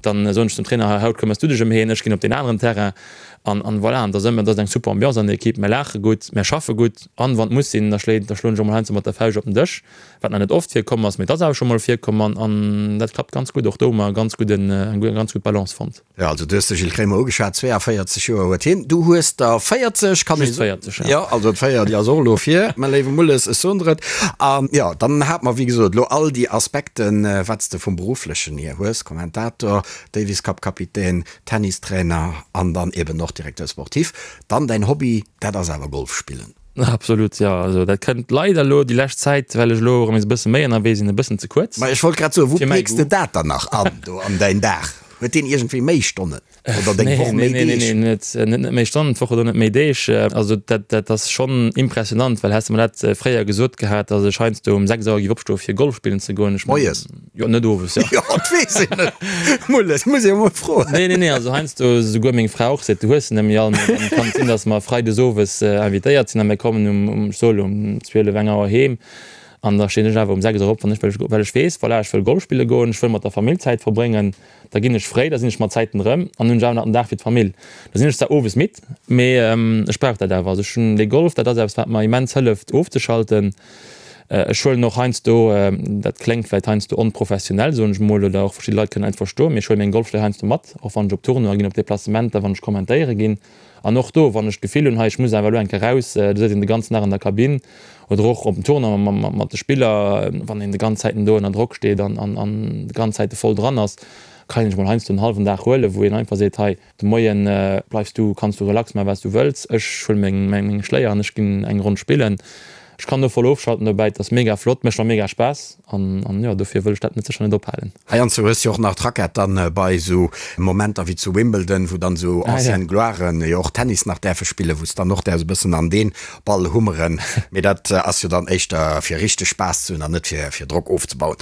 S5: dann soen ech zum Trainer, hei haut këmmers du dech ëm heen, ech ginn op deen aneren Terrain an, an voilà. An et ass ëmmer, et ass eng super Ambiance an der Ekipp, mir laache gutt, mir schaffe gutt an wann et muss sinn, da schléit, da schloen ech och mol heiansdo mat der Fauscht op den Dësch. Wat nach net oft virkomm ass, mee et ass awer scho mol virkomm an an dat klappt ganz gutt. Och do hu mer e ganz gudden, eng ganz gutt Balance fonnt.
S4: Jo, also du hues de Gilles Kremer ugeschwat, 42 Joer huet hien, du hues der 40,
S5: kann ee soen. Just 40,
S4: jo. Jo, also d'Véier, déi ass och elo vir, mä léiwe Mulles, ech soen der et. An jo, dann hate mer, wéi gesot, elo all déi Aspekten, wat s de vum Berufflechen hier hues, Kommentator, Davis Cup Kapitän, Tennistrainer an dann eben och Directeur sportif. Dann däin Hobby, dat ass awer Golf spillen.
S5: Absolut, jo. Also dat kënnt leider elo déi lescht Zäit, well ech elo erëm nees e bësse méi ënnerwee sinn, e bëssen ze kuerz.
S4: Ma ech wollt grad soen, wou peeks de dat dann nach an do an däin Dag? Huet deen iergendwéi méi Stonnen oder deng Woch méi
S5: Deeg? Nee, nee, nee, net méi Stonnen d'Woch oder net méi Deeg. Also dat, dat ass schonn impressionant, well häss de mer dat fréier gesot gehat, datt ech heiansdo um 6 Auer géif opstoe fir Golf spillen ze goen, ech
S4: mengen. Moies?
S5: Jo, net owes,
S4: jo. Jo, dat weess een net. Mulles, muss ee mol froen.
S5: Nee, nee, nee, also heiansdo esouguer meng Fra och seet, du hues se net méi all. Mee dann kann et sinn, datt mer freides owes invitéiert sinn a mir kommen um, um, ech soe lo, um 12, eng Auer heem. An da stinn ech awer um 6 Auer op, wann ech, well ech, well ech weess, voilà, ech wëll Golf spille goen, ech wëll mat der Famill Zäit verbréngen. Da ginn ech fréi, da sinn ech mat Zäiten erëm an hunn ech awer nach den Dag fir d'Famill. Da sinn ech zwar owes midd, mee ech brauch dat awer. Also ech hunn dee Golf, dat ass eppes, wat mer immens hëlleft ofzeschalten. Ech huelen och heiansdo, dat kléngt vläicht heiansdo onprofessionell, soen ech emol, oder och verschidde Leit kënnen et net verstoen, mee ech huele meng Golfschléi heiansdo mat, och wann ech op Tournoie ginn, op Deplacementer, wann ech kommentéiere ginn. An och do, wann ech d'Gefill hunn, hei ech muss awer elo eng Kéier raus, do sëtzt een de ganzen Dag an der Kabinn oder och op dem Tournoi mat de Spiller, wann een de ganz Zäiten do ënner Drock steet an de ganz Zäite voll dran ass, kann een sech mol heiansdo en hallwen Dag huelen, wou een einfach seet, hei, De Moien bleifs du, kanns du relax maachen wat s du wëlls. Ech huelen meng meng Schléier an ech ginn eng Ronn spillen. Ech kann do voll ofschalten dobäi, et ass mega flott, mécht mer mega Spaass an an jo dofir wëll ech dat net sécher net ophalen.
S4: Heiansdo hues du jo och nach d'Rackett dann bei esou Momenter wéi zu Wimbledon, wou dann esou anciennes Gloiren jo och Tennis nach däerfe spillen, wou s dann och däerfs e bëssen an deen Ball hummeren. Mee dat ass jo dann éischter fir richteg Spaass ze hunn an net fir fir Drock ofzebauen.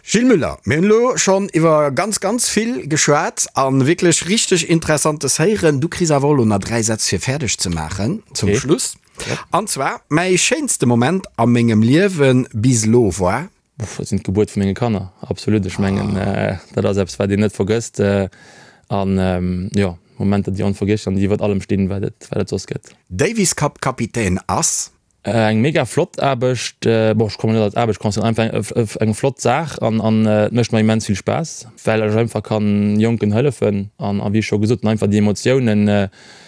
S4: Gilles Müller, mir hunn elo schonn iwwer ganz, ganz vill geschwat a wierklech richteg Interessantes héieren. Du kriss awer och elo nach 3 Sätz fir fäerdeg ze maachen zum Schluss. An zwar, Mäi schéinste Moment a mengem Liewe bis elo war.
S5: Uff, dat sinn d'Gebuert vu menge Kanner, absolut. Ech mengen, dat ass eppes, wat een net vergësst. An jo, Momenter, déi onvergiesslech an déi iwwert allem stinn, wat et, wat et soss gëtt.
S4: Davis Cup Kapitän ass.
S5: Eng mega flott Aarbecht, bon ech kommen net als Aarbecht considéieren, einfach eng flott Saach an an et mécht mer immens vill Spaass, well ech einfach kann Jonken hëllefen an a wéi ech scho gesot hunn, einfach déi Emotiounen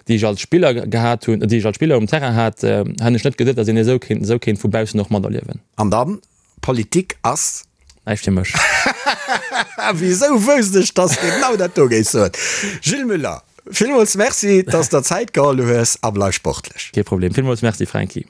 S5: déi ech als Spiller gehat hunn, déi ech als Spiller um Terrain hat, hätt ech net geduet, datt een esou kéint esou kéint vu baussen och materliewen.
S4: An dann, Politik ass.
S5: Näischt fir mech.
S4: Wisou wousst ech, dass de genau dat do géifs soen? Gilles Muller, villmools Merci, dass der Zäit geholl hues a bleif sportlech.
S5: Kee Problem. Villmools Merci, Franky.